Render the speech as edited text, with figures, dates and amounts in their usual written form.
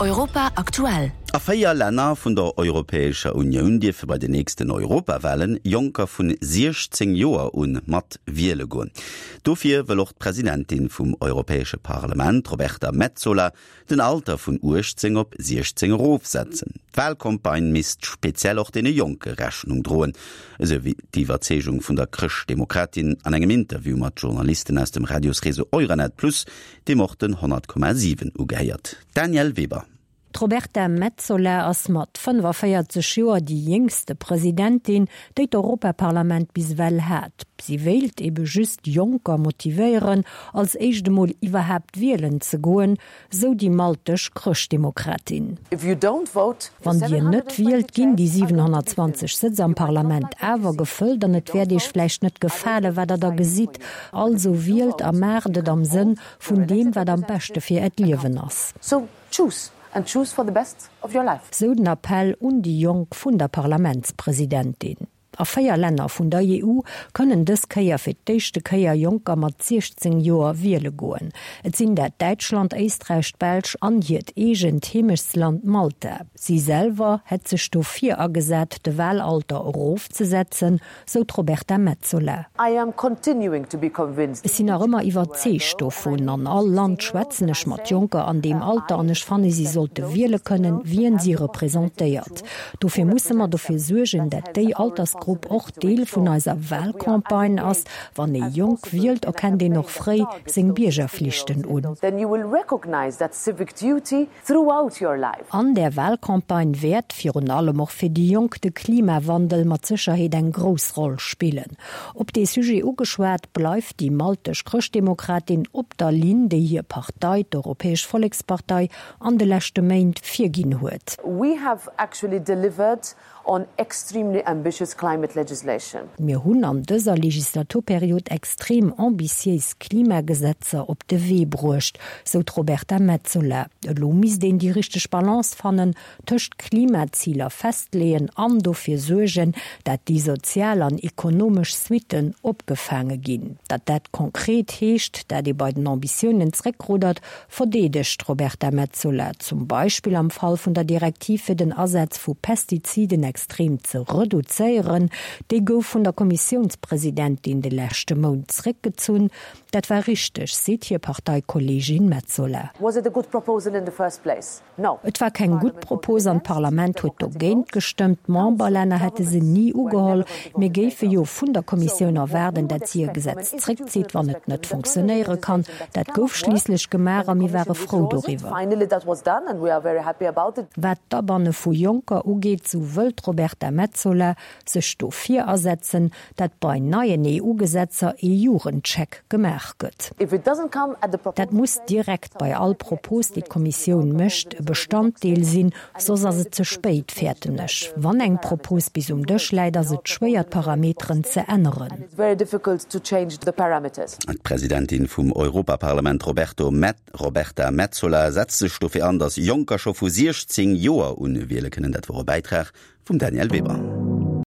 Europa aktuell. A 4 Länner vun der Europäescher Unioun dierfe bei den nächsten Europawahlen Jonker vun 16 Joer un mat wiele goen. Dofir wëll och d'Presidentin vum Europäesche Parlement, d'Roberta Metsola, den Alter vun 18 op 16 erofsetzen. D'Wahlcampagne misst speziell och deene Jonke Rechnung droen, esou wéi d'Iwwerzeegung vun der Chrëschtdemokratin an engem Interview mat Journalisten aus dem Radiosreseau Euranet Plus, deem och den 100,7 ugehéiert. Danièle Weber. D'Roberta Metsola ass mat 45 Joer déi jéngste Presidentin, déi d'Europaparlament bis ewell hat. Si wéilt ebe just Jonker motivéieren, als éischt emol iwwerhaapt wielen ze goen, sou déi maltesch Chrëschtdemokratin. Wann Dir net wielt, ginn déi 720 Sëtz am Parlament awer gefëllt an et wäert Iech vläicht net gefalen, wat Der da gesitt. Also wielt a maacht et am Sënn vun deem, wat am beschte fir Äert Liewen ass. Sou den Appell un déi Jonk vun der Parlamentspresidentin. A 4 Länner vun der EU kënnen dës Kéier fir d'éischte Kéier Jonker mat 16 Joer wiele goen. Et sinn dat Däitschland, Éisträich, d'Belsch an hiert eegent Heemechtsland Malta. Si selwer hätt sech dofir agesat, de Wahlalter erofzesetzen, sou d'Roberta Metsola. Ech sinn nach ëmmer iwwerzeegt dovun. An all Land schwätzen ech mat Jonker an deem Alter an ech fanne si sollte wiele kënnen, wien si representéiert. Dofir musse mer dofir suergen, dat déi Altersgrupp och Deel vun eiser Wahlcampagne ass. Wann ee jonk wielt, erkennt een och fréi seng Biergerflichten un. An där Wahlcampagne wäert, virun allem och fir déi Jonk, de Klimawandel mat Sécherheet eng grouss Roll spillen. Op dee Sujet ugeschwat, bleift déi maltesch Chrëschtdemokratin op der Linn, déi hir Partei, d'Europäesch Vollekspartei, an de leschte Méint virginn huet. We have actually delivered on extremely ambitious climate legislation. Mir hunn an dëser Legislaturperiod extrem ambitiéis Klimagesetzer op de Wee bruecht, sou d'Roberta Metsola. Elo misst een déi richteg Balance fannen tëscht Klimaziler festleeën an dofir suergen, dat déi sozial an ekonomesch Suitten opgefaange ginn. Datt dat konkret heescht, dat ee bei den Ambitiounen zréckruddert, verdeedegt d'Roberta Metsola, zum Beispill am Fall vun der Direktiv fir den Asaz vu Pestiziden extrem ze reduzéieren. Déi gouf vun der Kommissiounspresidentin de leschte Mount zréckgezunn. Dat war richteg, seet hir Parteikolleegin Metsola. Was it a good proposal in the first place? No. Et war keng gutt Propos an d'Parlament huet dogéint gestëmmt. D'Memberlänner hätte se ni ugeholl. Mir géife jo vun der Kommissioun erwaarden, dat si e Gesetz zréckzitt, wann et net fonctionnéiere kann. Dat gouf schliisslech gemaach a mir ware frou doriwwer. Wat d'Abanne vu Jonker ugeet, sou wëll d'Roberta Metsola sech dofir asetzen, dat bei neien EU-Gesetzer ee Jugendcheck gemaach gëtt. Dat muss direkt bei all Propos, déi d'Kommissioun mécht, e Bestanddeel sinn, soss ass et ze spéit, fäerten ech. Wann eng Propos bis um Dësch läit, ass et schwéier, d'Parameteren ze änneren. D'Presidentin vum Europaparlament Roberta Metsola setzt sech dofir an, datt Jonker scho vu 16 Joer un wiele kënnen. Dat wor e Bäitrag vum Danièle Weber.